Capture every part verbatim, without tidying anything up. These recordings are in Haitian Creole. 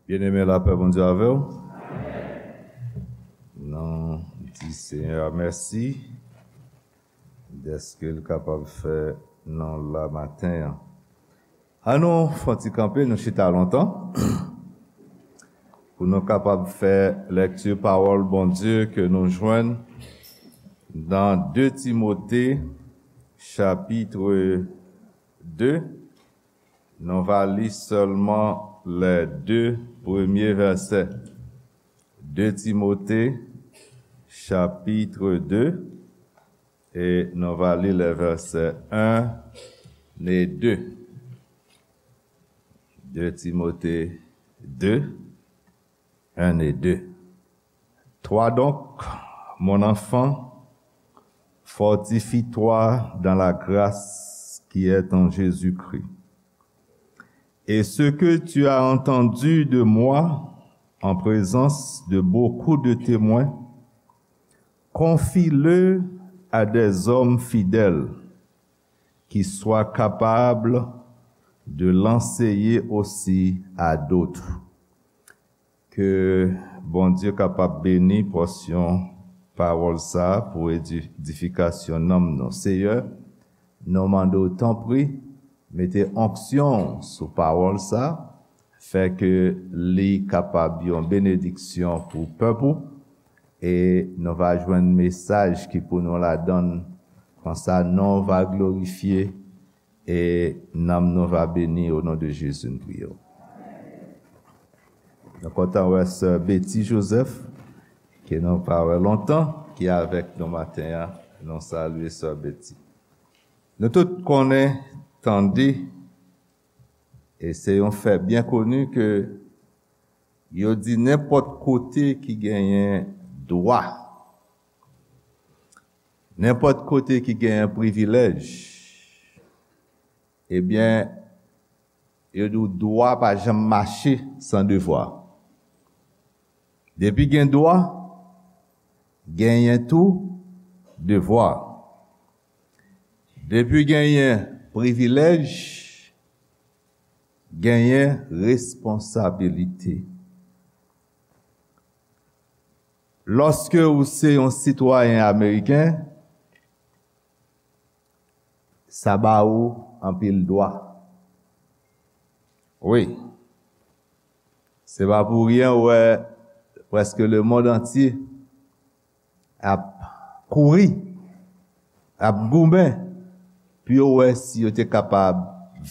Byeneme, lapè Bondye avè w. Nou di Senyè a mèsi dèske l kapab fè nou la maten an. Ann nou fè yon ti kanpe, nou chita lontan, pou nou kapab fè lèkti pawòl Bondye ke nou jwenn nan de Timote, chapit de. Nou va li sèlman lè de premye vèsè. De Timote, chapit de, e nou va li lè vèsè en e de. De Timote de, en e de. Toi donc, mon enfant, fortifie-toi dans la grâce qui est en Jésus-Christ. Et ce que tu as entendu de moi en présence de beaucoup de témoins, confie-le à des hommes fidèles qui soient capables de l'enseigner aussi à d'autres. Ke Bondye kapab beni pòsyon pawòl sa a pou edi-, edifikasyon nanm nou. Seyè, nou mande w, tanpri, mete onksyon sou pawòl sa a, fè ke li kapab yon benediksyon pou pèp ou, e nou va jwenn mesaj ki pou nou ladan l. Konsa, non w va glorifye, e nanm nou va beni, o non de Jezi, nou priye w. Nou kontan wè sè Betty Joseph, ke nou pa wè lontan, ki avèk nou maten an. Nou salye sè Betty. Nou tout konnen, tande, e se yon fè byen koni ke yo di nenpòt kote ki genyen dwa, nenpòt kote ki genyen privilèj, ebyen, yo di w dwa pa janm mache san devwa. Depi gen dwa, genyen tou devwa. Depi genyen privilèj, genyen responsabilite. Lòske ou se yon sitwayen ameriken, sa ba ou anpil dwa. Wi. Se pa pou ryen ou wè prèske lemonn antye ap kouri, ap goumen pou yo wè si yo te kapab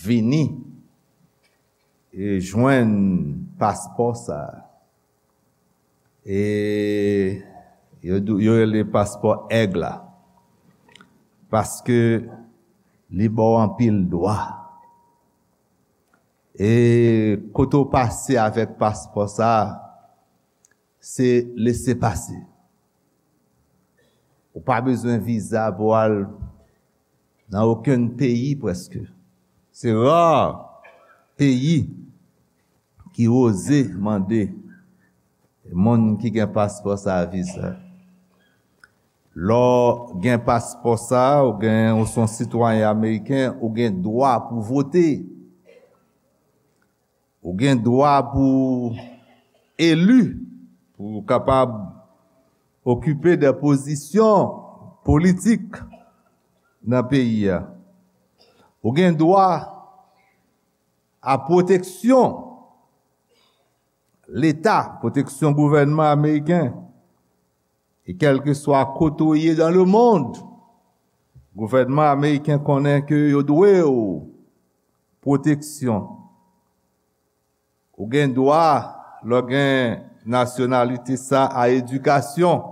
vini e jwenn paspò sa a. E yo dou-, yo rele paspò èg la. Paske li ba w anpil dwa. E kote w pase avèk paspò sa a, se lese pase. Ou pa bezwen viza pou al nan okenn peyi prèske. Se ra peyi ki oze mande moun ki gen paspò sa a viza. Lè w gen paspò sa a, ou gen, ou se yon sitwayen ameriken, ou gen dwa pou vote. Ou gen dwa pou eli, pou w kapab okipe de pozisyon politik nan peyi a. Ou gen dwa a pwoteksyon Leta, pwoteksyon gouvènman ameriken. E kèlkeswa kote w ye dans le monde, gouvènman ameriken konnen ke yo dwe w pwoteksyon. Ou gen dwa, lè w gen nasyonalite sa, a edikasyon.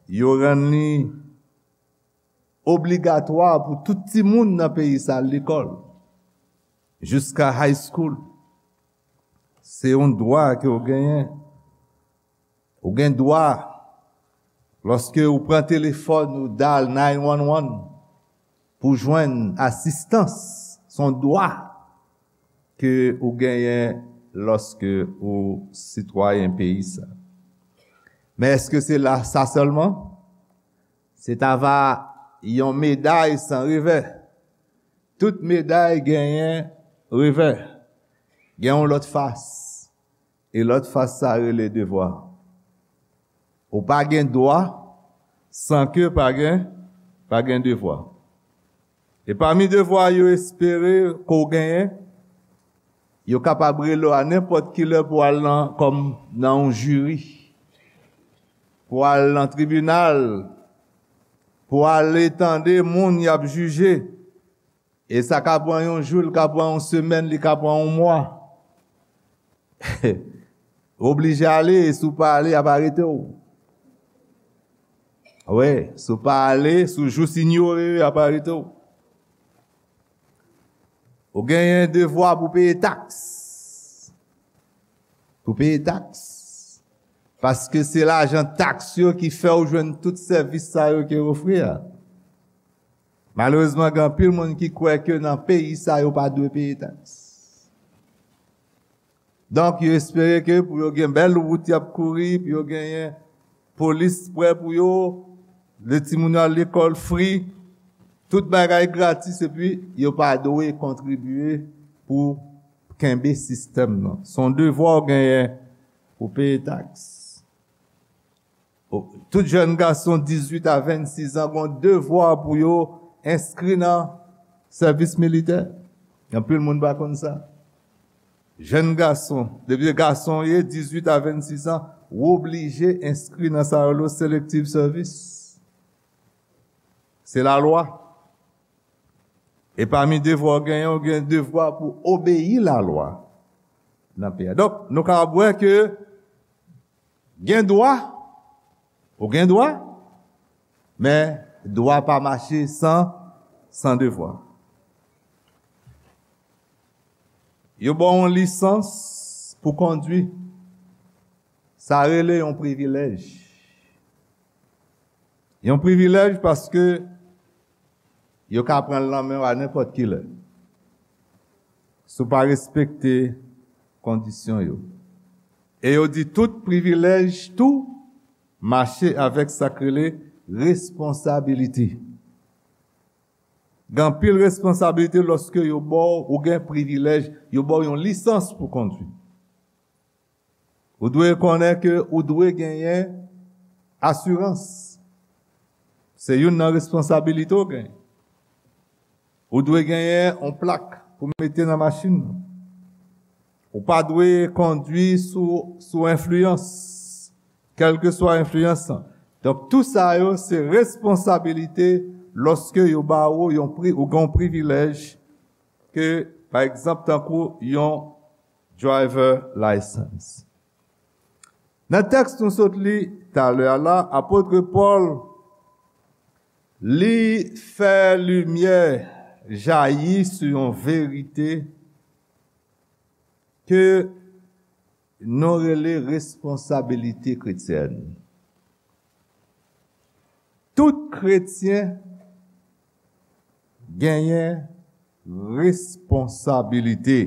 Yo rann li obligatwa pou tout timoun nan peyi sa al lekòl, jiska high school. Se yon dwa ke w genyen. Ou gen dwa, lòske ou pran telefòn, ou dal nine one one pou jwenn asistans. Se yon dwa ke ou genyen lòske ou sitwayen peyi sa. Men èske se la, sa sèlman? Se ta va yon meday san revè. Tout meday genyen revè. Gen yon lòt fas. E lòt fas sa rele devwa. Ou pa gen dwa san ke pa gen, pa gen devwa. E pami devwa yo espere ke w genyen, yo kapab rele w a nenpòt ki lè pou w al nan, kòm nan yon jiri, pou w al nan tribinal, pou w ale tande moun y ap jije. E sa ka pran yon jou, li ka pran yon semèn, li ka pran yon mwa. Ou oblije ale, e si w pa ale, y ap arete w. Wi, si w pa ale, si w jis inyore yo, y ap arete w. Ou genyen devwa pou peye taks. Pou peye taks. Paske se lajan taks yo ki fè w jwenn tout sèvis sa yo ke yo ofri a. Malerezman, gen anpil moun ki kwè ke nan peyi sa yo pa dwe peye taks. Donk, yo espere ke pou yo gen bèl wout y ap kouri, pou yo genyen polis prè pou yo, lè timoun yo al lekòl fri, tout bagay gratis, epi yo pa dwe kontribye pou kenbe sistèm nan. Se yon devwa w genyen pou peye taks. Tout jèn gason dizuit a vennsis an gen yon devwa pou yo enskri nan sèvis militè. Anpil moun pa konn sa. Jèn gason, depi gason w ye, dizuit a vennsis an, ou oblije enskri nan sa yo rele selective service. Se lalwa. E pami devwa w genyen, ou gen devwa pou obeyi lalwa nan peyi a. Donk, nou kapab wè ke gen dwa, ou gen dwa, men dwa pa mache san, san devwa. Yo ba w yon lisans pou kondwi. Sa rele yon privilèj. Yon privilèj paske yo ka pran l nan men w a nenpòt ki lè. Si w pa respekte kondisyon yo. E yo di tout privilèj tou mache avèk sa k rele responsabilite. Gen anpil responsabilite lòske yo ba w, ou gen privilèj, yo ba w yon lisans pou kondwi. Ou dwe konnen ke ou dwe genyen asirans. Se youn nan responsabilite w genyen. Ou dwe genyen yon plak pou mete nan machin nan. Ou pa dwe kondwi sou, sou enfliyans, kèlkeswa enfliyans lan. Donk, tou sa yo se responsabilite lòske yo ba ou yon pri, ou gen yon privilèj ke, pa egzanp, tankou yon driver license. Nan tèks nou sot li talè a la, apot Pòl, li fè limyè jayi sou yon verite ke nou rele responsabilite kretyèn. Tout kretyen genyen responsabilite.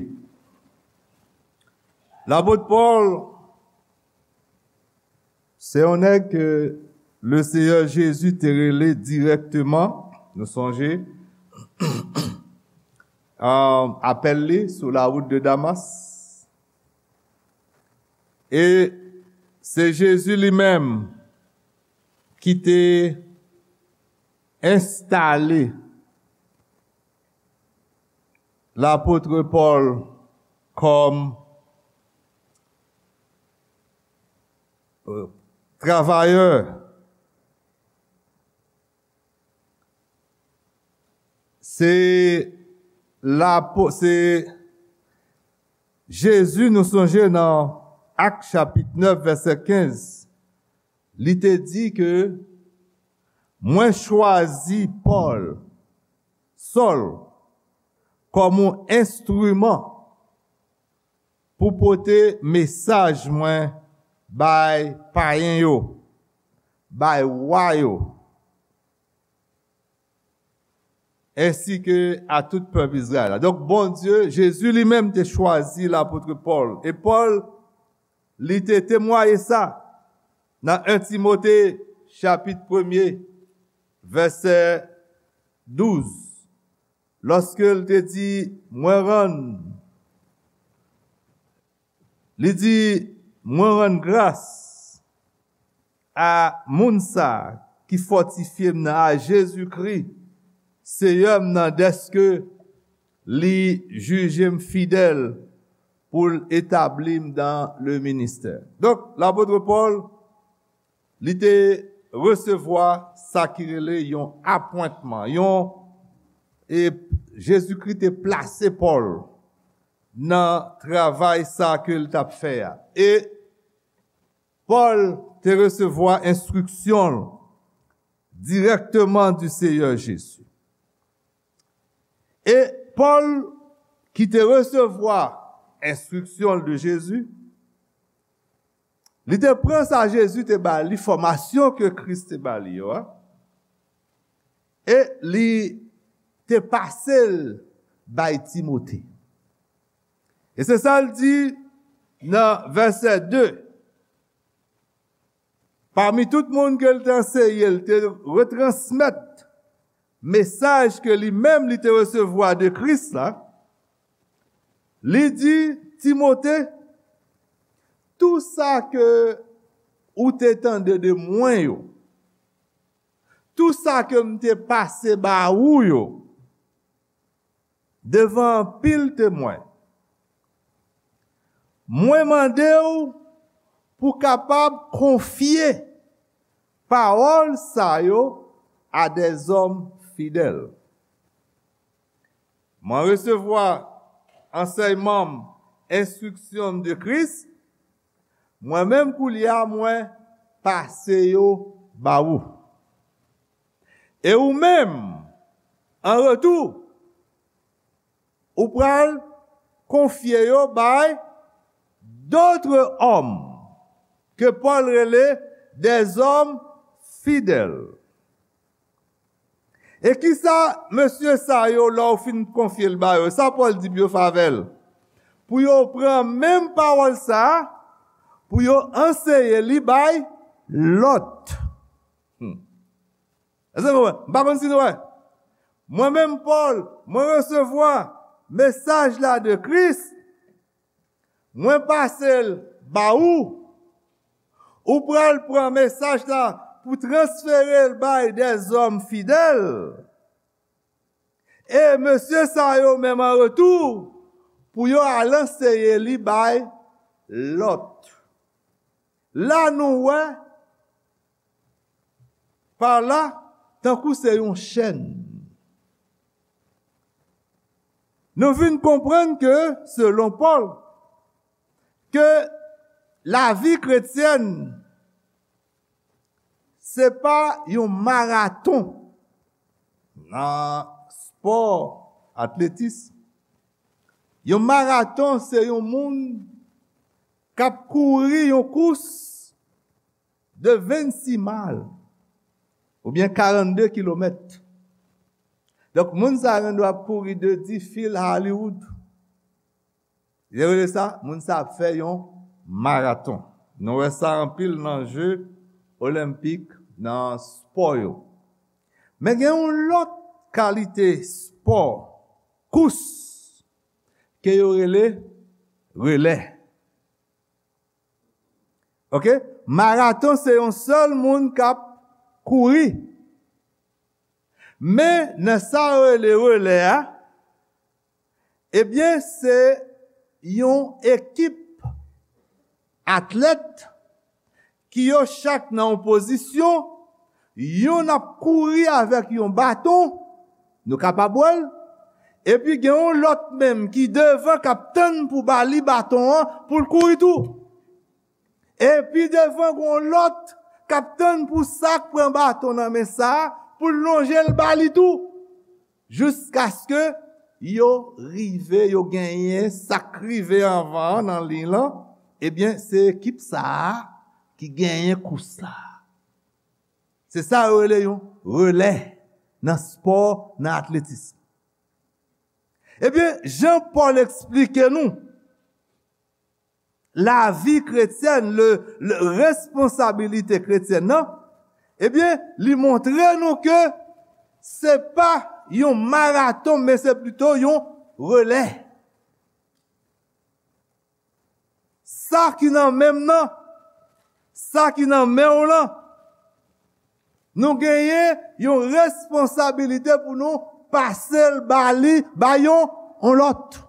Lapot Pòl, se yon nèg ke Leseyè Jezi te rele dirèkteman, nou sonje, a, apèl li sou la wout de Damas. E se Jezi li menm ki te enstale lapot Pòl kòm, e, travayè. Se lapo-, se Jezi, nou sonje nan Ak chapit nèf, vèsè kenz, li te di ke, "Mwen chwazi Pòl, Sòl, kòm yon enstriman pou pote mesaj mwen bay payen yo, bay wa yo, ensi ke a tout pèp Izrayèl la." Donk, Bondye, Jezi li menm te chwazi lapot Pòl. E Pòl, li te temwaye sa nan en Timote, chapit premye, vèsè douz. Lòske l te di, "Mwen rann," li di, Mwen rann gras a moun sa a ki fòtifye m nan, a Jezikri, Seyè m nan, dèske li jije m fidèl pou l etabli m dan le ministè. Donk, lapot Pòl, li te resevwa sa ki rele yon apwentman, yon, e Jezikri te plase Pòl nan travay sa ke l t ap fè a. E Pòl te resevwa enstriksyon l dirèkteman di Seyè Jezi. E Pòl ki te resevwa enstriksyon l de Jezi, li te pran sa Jezi te ba li, fòmasyon ke Kris te ba li yo a, e li te pase l bay Timote. E se sa l di nan vèsè de. Pami tout moun ke l te anseye, l te retransmèt mesaj ke li menm li te resevwa de Kris la. Li di Timote, tou sa ke ou te tande de mwen yo, tou sa ke m te pase ba ou yo, devan anpil temwen, mwen mande w pou kapab konfye pawòl sa yo a dèzòm fidèl. Mwen resevwa ansèyman m, enstriksyon m de Kris, mwen menm koulye a mwen pase yo ba ou. E ou menm, an retou, ou pral konfye yo bay d'autres hommes, ke Pòl rele des hommes fidèles. E kisa mesye sa yo, lè w fin konfye l ba yo, sa Pòl di pou yo fè avè l? Pou yo pran menm pawòl sa a, pou yo anseye li bay lòt. Hmm. Èske nou wè? M pa konn si nou wè. Mwen menm, Pòl, mwen resevwa mesaj la de Kris, mwen pase l ba ou. Ou pral pran mesaj la pou transfere l bay dèzòm fidèl. E mesye sa yo menm, an retou, pou yo al anseye li bay lòt. La nou wè pa la, tankou se yon chèn. Nou vin konprann ke, selon Pòl, ke lavi kretyèn, se pa yon maraton nan spò atletis. Yon maraton, se yon moun k ap kouri yon kous de vennsis mal, oubyen karannde kilomèt. Donk, moun sa yo gendwa ap kouri de Difield a Hollywood. Yo rele sa, moun sa ap fè yon maraton. Nou wè sa anpil nan je olenpik, nan spò yo. Men gen yon lòt kalite spò, kous, ke yo rele relè. Oke? Maraton se yon sèl moun k ap kouri. Men nan sa yo rele relè a, ebyen, se yon ekip atlèt ki yo chak nan yon pozisyon, yonn ap kouri avèk yon baton, nou kapab wè l, epi gen yon lòt menm ki devan k ap tann pou ba li baton an pou l kouri tou. Epi devan, gen yon lòt k ap tann pou sa k pran baton nan men sa a, pou l lonje l ba li tou. Jiskaske yo rive, yo genyen sa k rive anvan an nan liy lan, ebyen, se ekip sa a ki genyen kous la. Se sa yo rele yon relè nan spò, nan atletis. Ebyen, jan Pòl eksplike nou lavi kretyèn, le, le responsabilité chrétienne nan, ebyen, li montre nou ke se pa yon maraton, men se plito yon relè. sa ki nan men m nan, sa ki nan men w lan, nou genyen yon responsabilite pou nou pase l ba li, ba yon, yon lòt.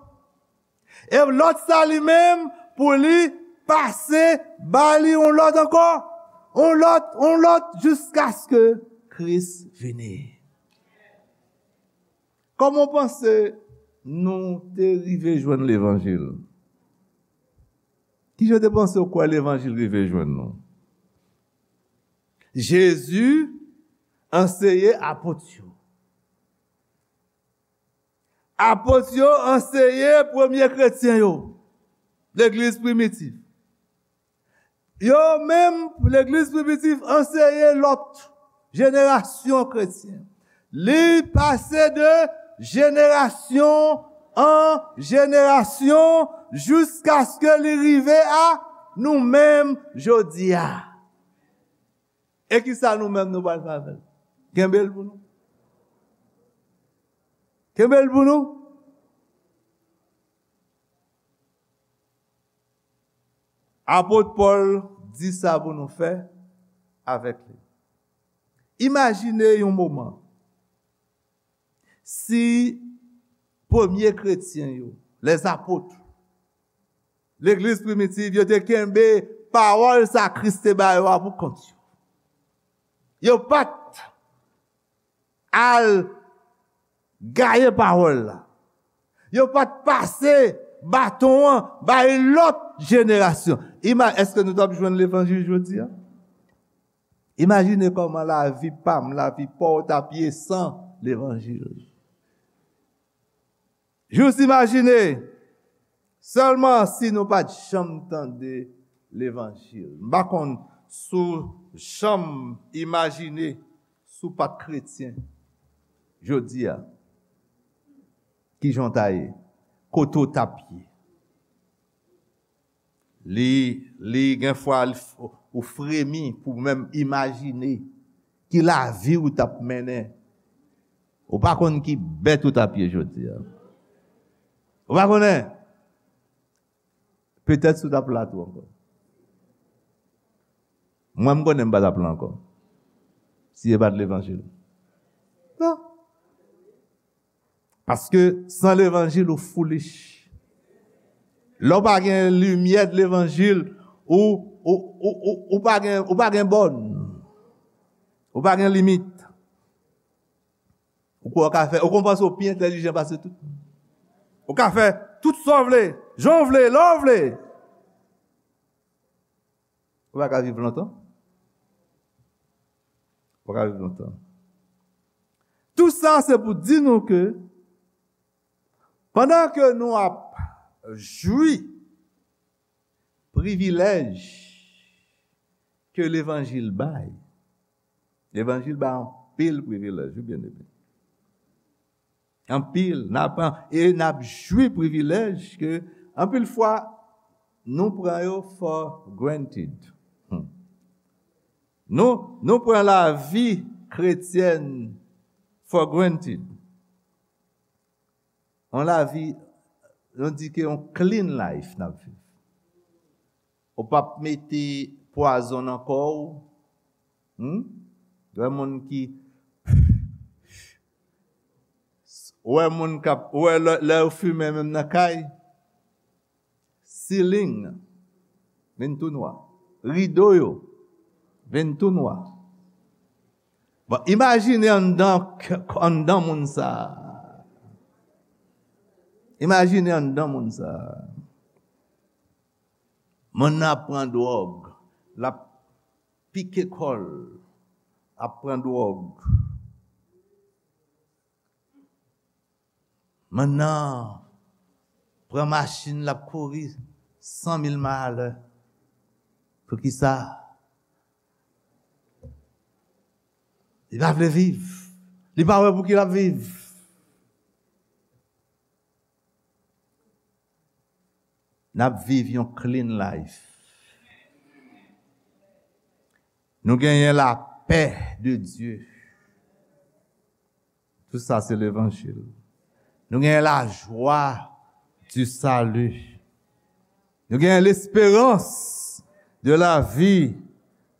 E lòt sa li menm, pou li pase ba li yon lòt ankò, yon lòt, yon lòt, jiskaske Kris vini. Kòman w panse nou te rive jwenn levanjil? Kijan w te panse w kwè levanjil rive jwenn nou? Jezi anseye apot yo. Apot yo anseye premye kretyen yo, legliz primitif. Yo menm, legliz primitif anseye lòt jenerasyon kretyen. Li pase de jenerasyon an jenerasyon jiskaske li rive a nou menm jodi a. E kisa nou menm nou pral fè avè l? Kenbe l pou nou. Kenbe l pou nou. Apot Pòl di sa pou nou fè avèk li. Imajine yon moman si premye kretyen yo, lèzapot, legliz primitiv, yo te kenbe pawòl sa Kris te ba yo a pou kont yo. Yo pa t al gaye pawòl la. Yo pa t pase baton an bay lòt jenerasyon. Ima-, èske nou t ap jwenn levanjil jodi a? Imajine kòman lavi pa m, lavi pa w t ap ye san levanjil. Jis imajine, sèlman si nou pa t janm tande levanjil. M pa konn si w janm imajine si w pa t kretyen jodi a, kijan w ta ye, kote w t ap ye. Li, li gen fwa l f-, ou fremi pou menm imajine ki lavi ou t ap mennen. Ou pa konn ki bèt ou t ap ye jodi a. Ou pa konnen. Petèt si w t ap la tou ankò. Mwen, m konnen m pa t ap la ankò. Si e pa t levanjil. Non. Paske san levanjil, ou foolish. Lè w pa gen limyè de levanjil, ou, ou, ou, ou, ou pa gen, ou pa gen bòn. Ou pa gen limit. Ou kwè w ka fè, ou konn panse w pi entèlijan pase tout. Ou ka fè tout sa w vle, jan w vle, lè w vle. Ou pa ka viv lontan. Ou pa ka viv lontan. Tout sa, se pou di nou ke pandan ke nou ap jwi privilèj ke levanjil bay, levanjil bay anpil privilèj, wi, byeneme. Anpil, n ap, e n ap jwi privilèj ke anpil fwa nou pran yo for granted. Hmm. Nou, nou pran lavi kretyèn for granted. Yon lavi, nou di ke yon clean life n ap viv. Ou p ap mete pwazon nan kò w. Hmm? Ou wè moun ki, ou wè moun k ap, ou wè lè, lè yo fimen menm nan kay, ceiling vin tou nwa. Rido yo vin tou nwa. Bon, imajine anndan, anndan moun sa a. Imajine anndan moun sa a. Moun nan ap pran dwòg, l ap pike kò l, ap pran dwòg. Moun nan pran machin, l ap kouri san mil may alè. Poukisa? Li pa vle viv. Li pa wè pou ki l ap viv. N ap viv yon clean life. Nou genyen lapè de Dye. Tout sa se levanjil. Nou genyen lajwa du salut. Nou gen lesperans de la vi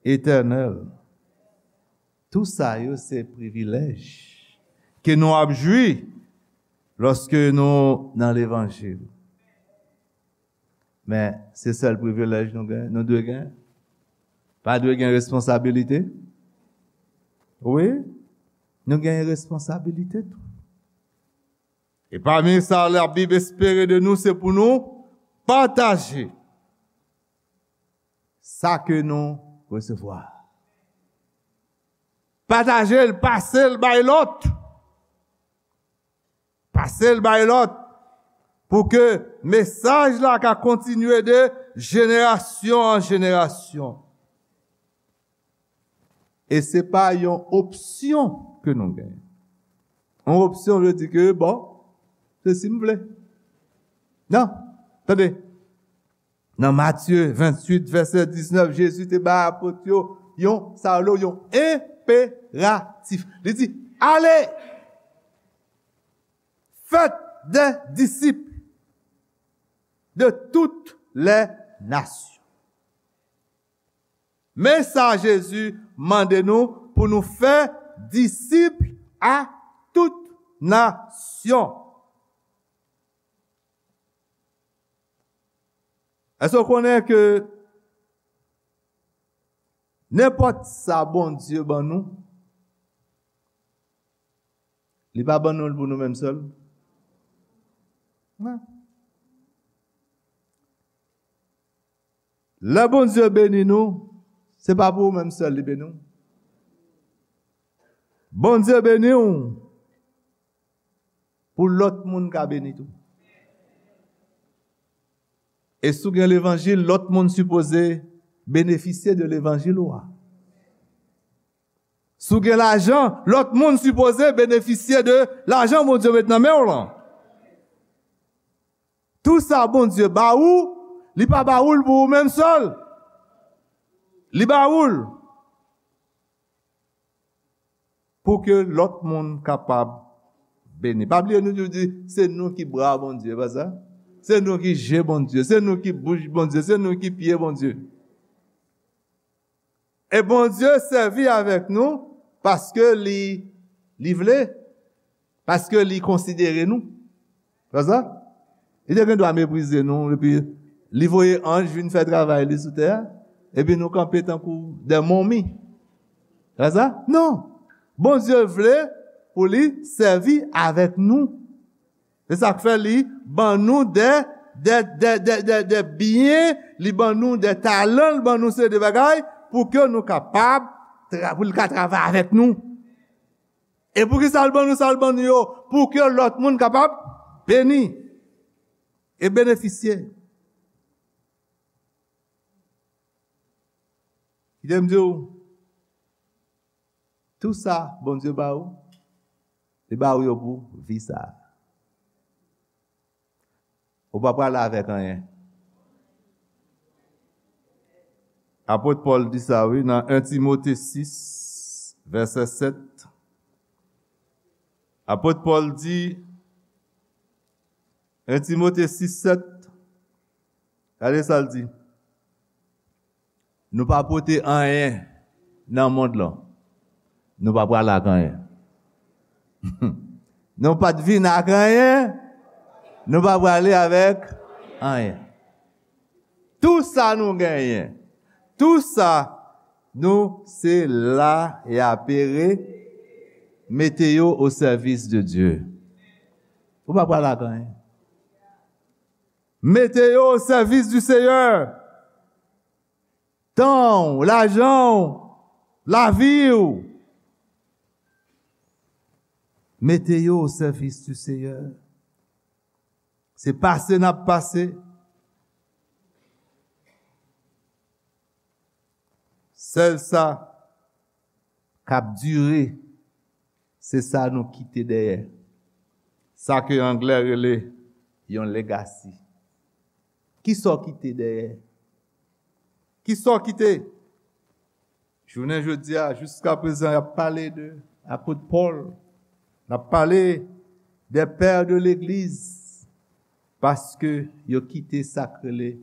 etènèl. Tou sa yo se privilèj ke nou ap jwi lòske nou nan levanjil. Men, se sèl privilèj nou gen, nou dwe gen. Pa dwe gen responsabilite? Wi, nou gen responsabilite tou. E pami sa Labib espere de nou, se pou nou pataje sa ke nou resevwa. Pataje l, pase l bay lòt. Pase l bay lòt. Pou ke mesaj la ka kontinye de jenerasyon an jenerasyon. E se pa yon opsyon ke nou genyen. Yon opsyon vle di ke, bon, se si m vle. Non, tande. Nan Matye venntuit, vèsè diznèf, Jezi te bay apot yo yon, sa yo, yon enperatif. Li di, "Ale! Faites des disciples de toutes les nations." Men sa Jezi mande nou pou nou fè disip a tout nasyon. Èske w konnen ke nenpòt sa Bondye ban nou, li pa ban nou l pou nou menm sèl? Non. Lè Bondye beni nou, se pa pou ou menm sèl li beni w. Bondye beni w pou lòt moun ka beni tou. E si w gen levanjil, lòt moun sipoze benefisye de levanjil ou a. Si w gen lajan, lòt moun sipoze benefisye de lajan Bondye met nan men w lan. Tou sa Bondye ba ou, li pa ba ou l pou ou menm sèl. Li ba ou l pou ke lòt moun kapab beni. Pa bliye nou toujou di, se nou ki bra Bondye, pa sa? Se nou ki je Bondye, se nou ki bouch Bondye, se nou ki pye Bondye. E Bondye sèvi avèk nou paske li, li vle, paske li konsidere nou. Pa sa? Li te gen dwa meprize nou, epi li voye anj vin fè travay li sou tè a, epi nou kanpe tankou de momi. Pa sa? Non. Bondye vle pou li sèvi avèk nou. Se sa k fè li ban nou de, de, de, de, de, de byen, li ban nou de talan, li ban nou seri de bagay pou ke nou kapab, tra- pou li ka travay avèk nou. E poukisa l ban nou sa l ban nou yo? Pou ke lòt moun kapab beni e benefisye. Kite m di w, tou sa Bondye ba ou, li ba ou yo pou vi sa a. Ou pa prale avèk anyen. Apot Pòl di sa, wi, nan en Timote sis, vèsè sèt. Apot Pòl di, en Timote sis sèt, gade sa l di. Nou pa pote anyen nan mond lan. Nou pa prale ak anyen. Nou pa t vin ak anyen. Nou pa prale avèk anyen. Tou sa nou genyen, tou sa nou se la e apere, mete yo o sèvis de Dye. Ou pa prale ak anyen. Mete yo o sèvis di Seyè. Tan w, lajan w, lavi w. Mete yo o sèvis di Seyè. Se pase n ap pase. Sèl sa k ap dire, se sa nou kite dèyè. Sa ke anglè rele yon legacy. Kisa w kite dèyè? Kisa w kite? Jounen jodi a, jiska prezan, y ap pale de apot Pòl. N ap pale de pè de legliz. Paske yo kite sa k rele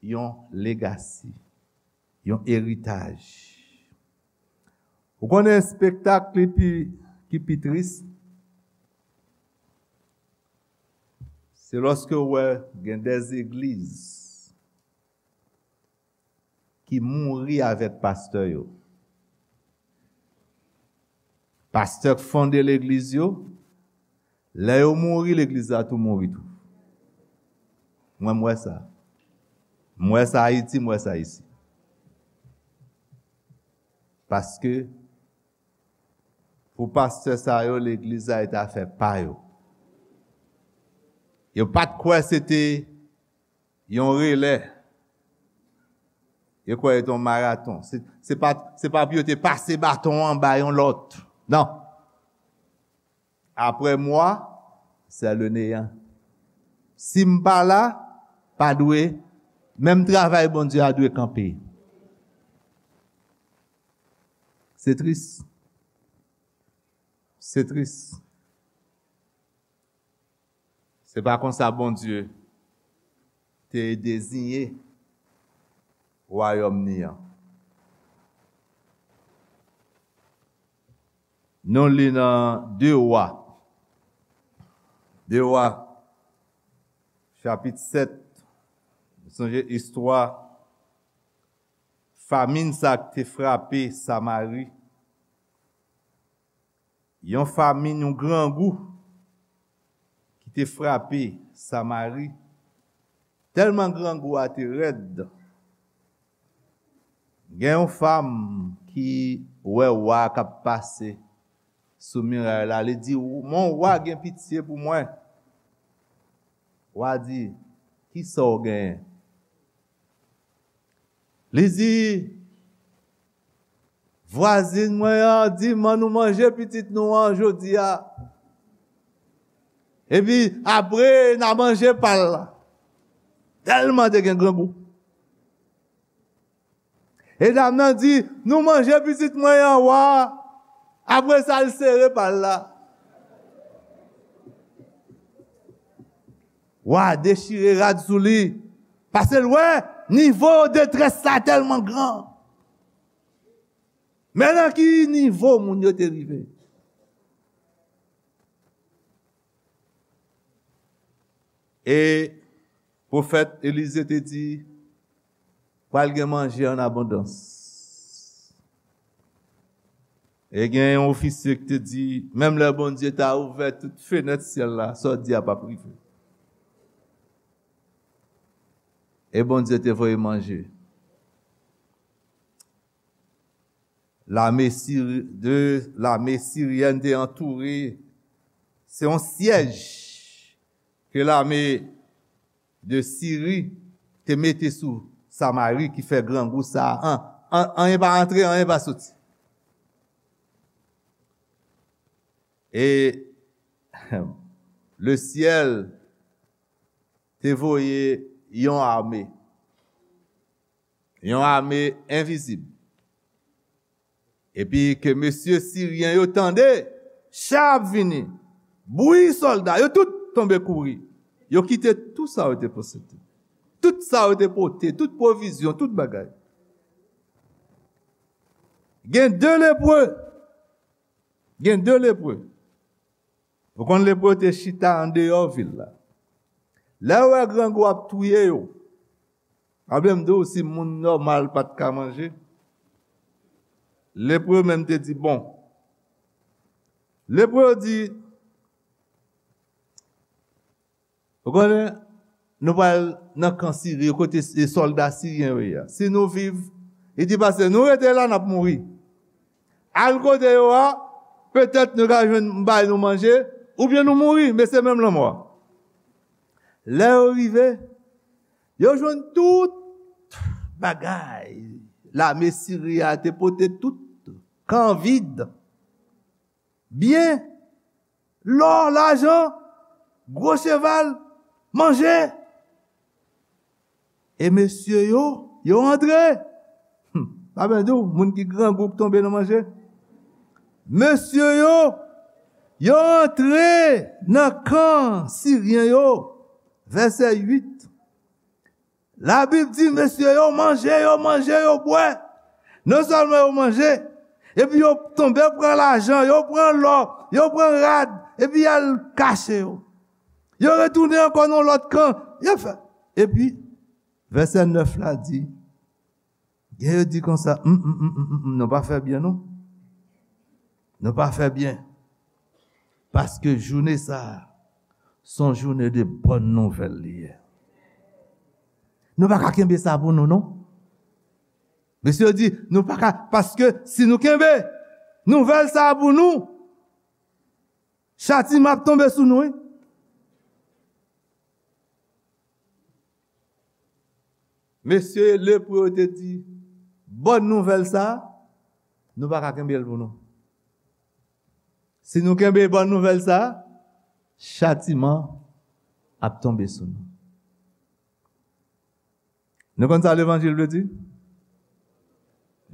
yon legasi, yon eritaj. Ou konnen espektak li pi, ki pi tris? Se lòske w wè gen de legliz ki mouri avèk pastè yo. Pastè k fonde legliz yo, lè yo mouri, legliz la tou mouri tou. Mwen, m wè sa. M wè sa Ayiti, m wè sa isi. Paske, pou pastè sa yo, legliz la e te afè pa yo. Yo pa t kwè se te yon relè. Yo kwè yo te yon maraton. Se, se pa, se pa pou yo te pase baton an ba yon lòt. Non. Après moi, c'est le néant. Si m pa la, pa dwe, menm travay Bondye a dwe kanpe. Se tris. Se tris. Se pa konsa Bondye te deziyen wayòm ni an. Nou li nan de Wa. De Wa, chapit sèt. Nou sonje istwa famin sa k te frape Samari. Yon famin, yon grangou ki te frape Samari. Tèlman grangou a te rèd, gen yon fanm ki wè wa k ap pase sou miray la, li di, "Mon wa, gen pitye pou mwen." Wa di, "Kisa w genyen?" Li di, "Vwazin mwen an di m ann nou manje pitit nou an jodi a. Epi apre, n a manje pa l la." Tèlman te gen grangou. E dam nan di, "Nou manje pitit mwen an, wa." Apre sa, l sere pa l la. Wa dechire rad sou li. Paske l wè nivo detrès la tèlman gran. Men nan ki nivo moun yo te rive. E pwofèt Elize te di, "Pral gen manje an abondans." E gen yon ofisye ki te di, "Menm lè Bondye ta ouvè tout fenèt syèl la, sa w di a p ap rive." E Bondye te voye manje. Lame siri-, de lame siryèn te antoure. Se yon syèj ke lame de Siri te mete sou Samari ki fè grangou sa a. An, an, anyen pa antre, anyen pa soti. E le syèl te voye yon ame, yon ame envizib. Epi ke mesye siryen yo tande, cha ap vini, bri sòlda, yo tout tonbe kouri. Yo kite tout sa yo te posede. Tout sa yo te pote, tout pwovizyon, tout bagay. Gen de lepre. Gen de lepre. Ou konn lepre te chita andeyò vil la. Lè yo wè grangou ap touye yo, pa vle m di w si moun nòmal pa t ka manje, lepre menm te di, "Bon." Lepre yo di, "Ou konnen, nou pral nan kan Siri, kote s-, sòlda siryen yo ye a. Si nou viv," li di, "paske nou rete la, n ap mouri. Al kote yo a, petèt nou ka jwenn bay nou manje, oubyen nou mouri, men se menm lanmò a." Lè yo rive, yo jwenn tout bagay lame Siri a te pote, tout kan vid, byen, lò, lajan, gwo cheval, manje. E mesye yo, yo antre. Hmm, pa byen di w, moun ki grangou k tonbe nan manje. Mesye yo, yo antre nan kan siryen yo. Vèsè uit. Labib di, mesye yo manje, yo manje, yo bwè. Non sèlman yo manje, epi yo tonbe pran lajan, yo pran lò, yo pran rad, epi y al kache yo. Yo retounen ankò nan lòt kan. Yo fè. Epi, vèsè nèf la di, gen yo di konsa, "M, m, m, m, m, m, nou pa fè byen, non. Nou pa fè byen." Paske jounen sa a, se yon jounen de bòn nouvèl li ye. Nou pa ka kenbe sa pou nou, non. Mesye yo di, nou pa ka, paske si nou kenbe nouvèl sa a pou nou, chatiman ap tonbe sou nou, wi. Mesye lepre yo te di, bòn nouvèl sa a, nou pa ka kenbe l pou nou. Si nou kenbe bòn nouvèl sa a, chatiman ap tonbe sou nou. Nou konn sa levanjil vle di?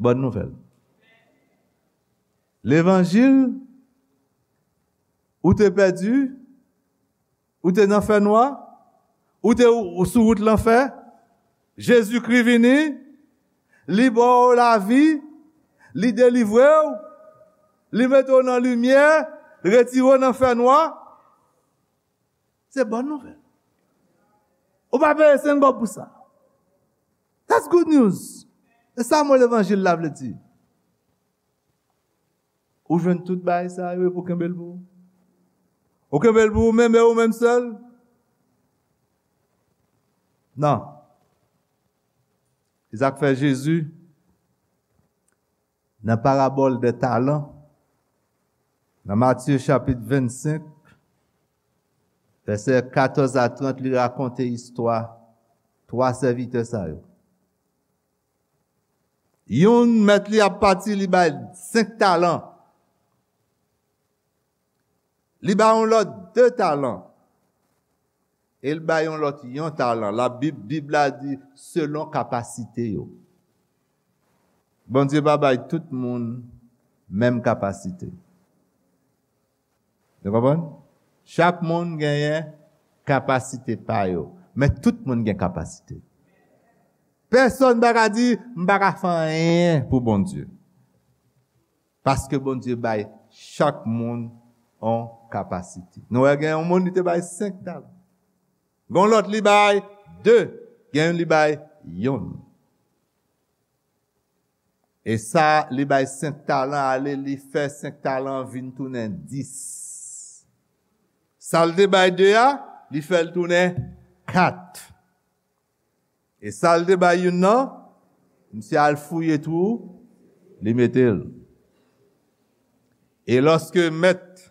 Bòn nouvèl. Levanjil, ou te pèdi, ou te nan fènwa, ou te ou sou wout lanfè, Jezikri vini, li ba w lavi, li delivre w, li mete w nan limyè, retire w nan fènwa. Se bòn nouvèl. Ou pa peye senk gòb pou sa. That's good news. E sa mo levanjil la vle di. Ou jwenn tout bagay sa yo epi ou kenbe l pou ou. Ou kenbe l pou ou menm e ou menm sèl. Non. Se sa k fè Jezi, nan parabòl de talan, nan Matye chapit vennsenk, vèsè katòz a trant, li rakonte istwa twa sèvitè sa yo. Youn, mèt li ap pati, li bay senk talan. Li bay yon lòt de talan. E l bay yon lòt yon talan. Labib, Bib la di, selon kapasite yo. Bondye pa bay tout moun menm kapasite. Nou konprann? Chak moun genyen kapasite pa yo. Men tout moun gen kapasite. Pèsonn pa ka di, "M pa ka fè anyen pou Bondye." Paske Bondye bay chak moun yon kapasite. Nou wè gen yon moun li te bay senk talan. Gen yon lòt li bay de, gen yon li bay yonn. E sa li bay senk talan ale, li fè senk talan vin tounen dis. Sa l te bay de a, li fè l tounen kat. E sa l te bay youn nan, misye al fouye twou, li mete l. E lòske mèt,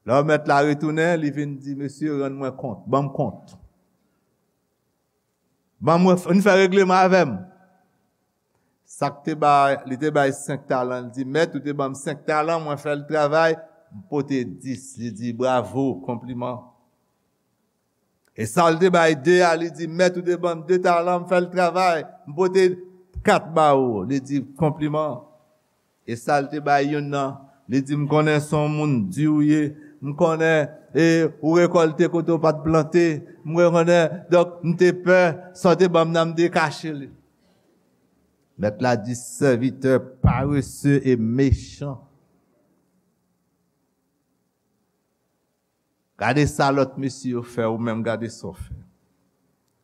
lè mèt la retounen, li vin di, "Mesye, rann mwen kont, ban m kont. Ban mwen, vin fè regleman avè m." Sa k te bay, li te bay senk talan, li di, "Mèt, ou te ban m senk talan, mwen fè l travay, m pote dis." Li di, "Bravo, konpliman." E sa l te bay de a, li di, "Mèt, ou te ban m de talan, m fè l travay, m pote kat ba ou." Li di, "Konpliman." E sa l te bay youn nan, li di, "M konnen se yon moun di ou ye, m konnen, e, ou rekòlte kote w pa t plante, m konnen, donk, m te pè, sa w te ban m nan, m te kache li." Mèt la di, "Sèvitè parese e mechan." Gade sa lòt mesye yo fè, ou menm gade sa w fè.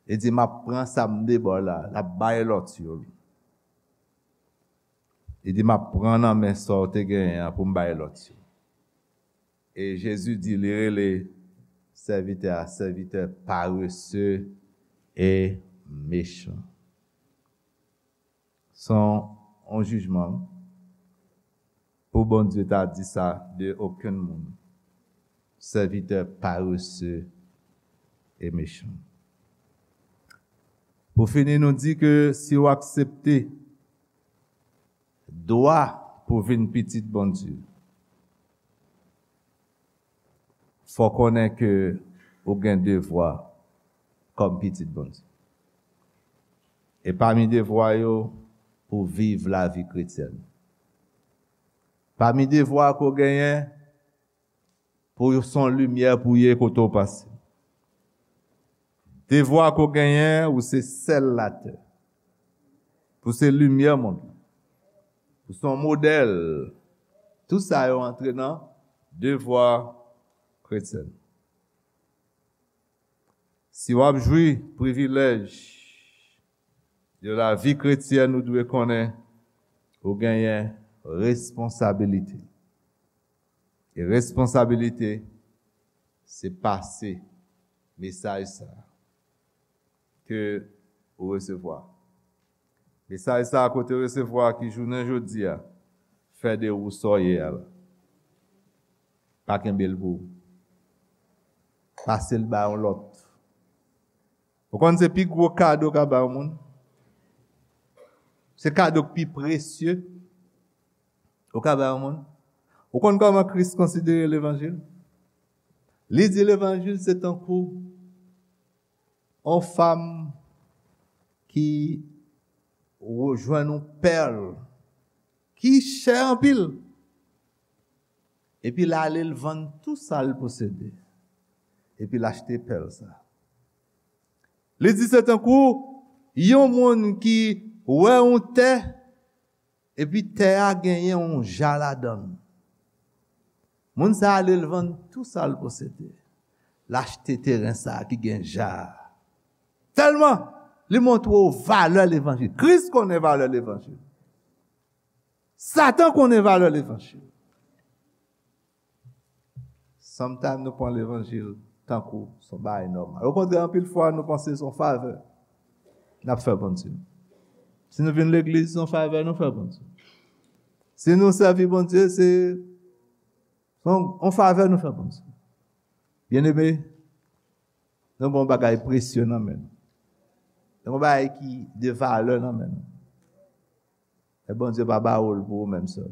Li di, "M ap pran sa m te ba w la, l ap bay lòt yo." Li di, "M ap pran nan men sa w te genyen an pou m bay lòt yo." E Jezi di, li rele sèvitè a, sèvitè parese e mechan. Se yon, yon jijman pou Bondye ta di sa de okenn moun. Sèvitè parese e mechan. Pou fini, nou di ke si w aksepte dwa pou vin pitit Bondye, fò konnen ke ou gen devwa kòm pitit Bondye. E pami devwa yo, pou viv lavi kretyèn. Pami devwa ke w genyen, pou w se yon limyè pou w ye kote w pase. Devwa ke w genyen, ou se sèl latè. Pou se limyè mond lan. Pou se yon modèl. Tout sa yo antre nan devwa kretyen. Si w ap jwi privilèj de lavi kretyèn, ou dwe konnen ou genyen responsabilite. E responsabilite, se pase mesaj sa a ke ou resevwa. Mesaj sa a ke w te resevwa ki jounen jodi a fè de ou sa w ye a la. Pa kenbe l pou ou. Pase l bay yon lòt. Ou konn se pi gwo kado w ka bay yon moun? Se kado k pi presye ou ka bay yon moun. Ou konn kòman Kris konsidere levanjil? Li di levanjil se tankou yon fanm ki jwenn yon pèl ki chè anpil. Epi l ale l vann tou sa l posede. Epi l achte pèl sa. Li di se tankou yon moun ki wè yon tè, epi tè a genyen yon ja ladan l. Moun sa ale l vann tou sa l posede. L achte teren sa ki gen ja a. Tèlman li montre w valè levanjil. Kris konnen valè levanjil. Satan konnen valè levanjil. Sometimes nou pran levanjil tankou se yon bagay nòmal. Okontrè, anpil fwa nou panse se yon favè n ap fè Bondye. Si nou vin legliz, se yon favè nou fè Bondye. Si nou sèvi Bondye, se yon, yon favè nou fè Bondye. Byeneme, nou gen yon bagay presye nan men nou. Nou gen yon bagay ki de valè nan men nou. E Bondye pa ba ou l pou ou menm sèl.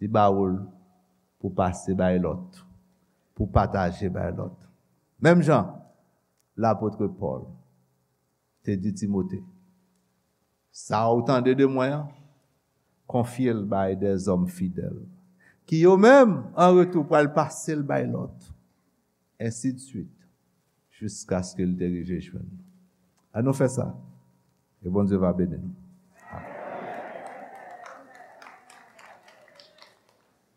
Li ba ou l pou pase bay lòt, pou pataje bay lòt. Menm jan lapot Pòl te di Timote, sa ou tande de mwen an, konfye l bay dèzòm fidèl, ki yo menm, an retou, pral pase l bay lòt. Ensidswit, jiskaske l te rive jwenn nou. Ann nou fè sa, e Bondye va beni nou.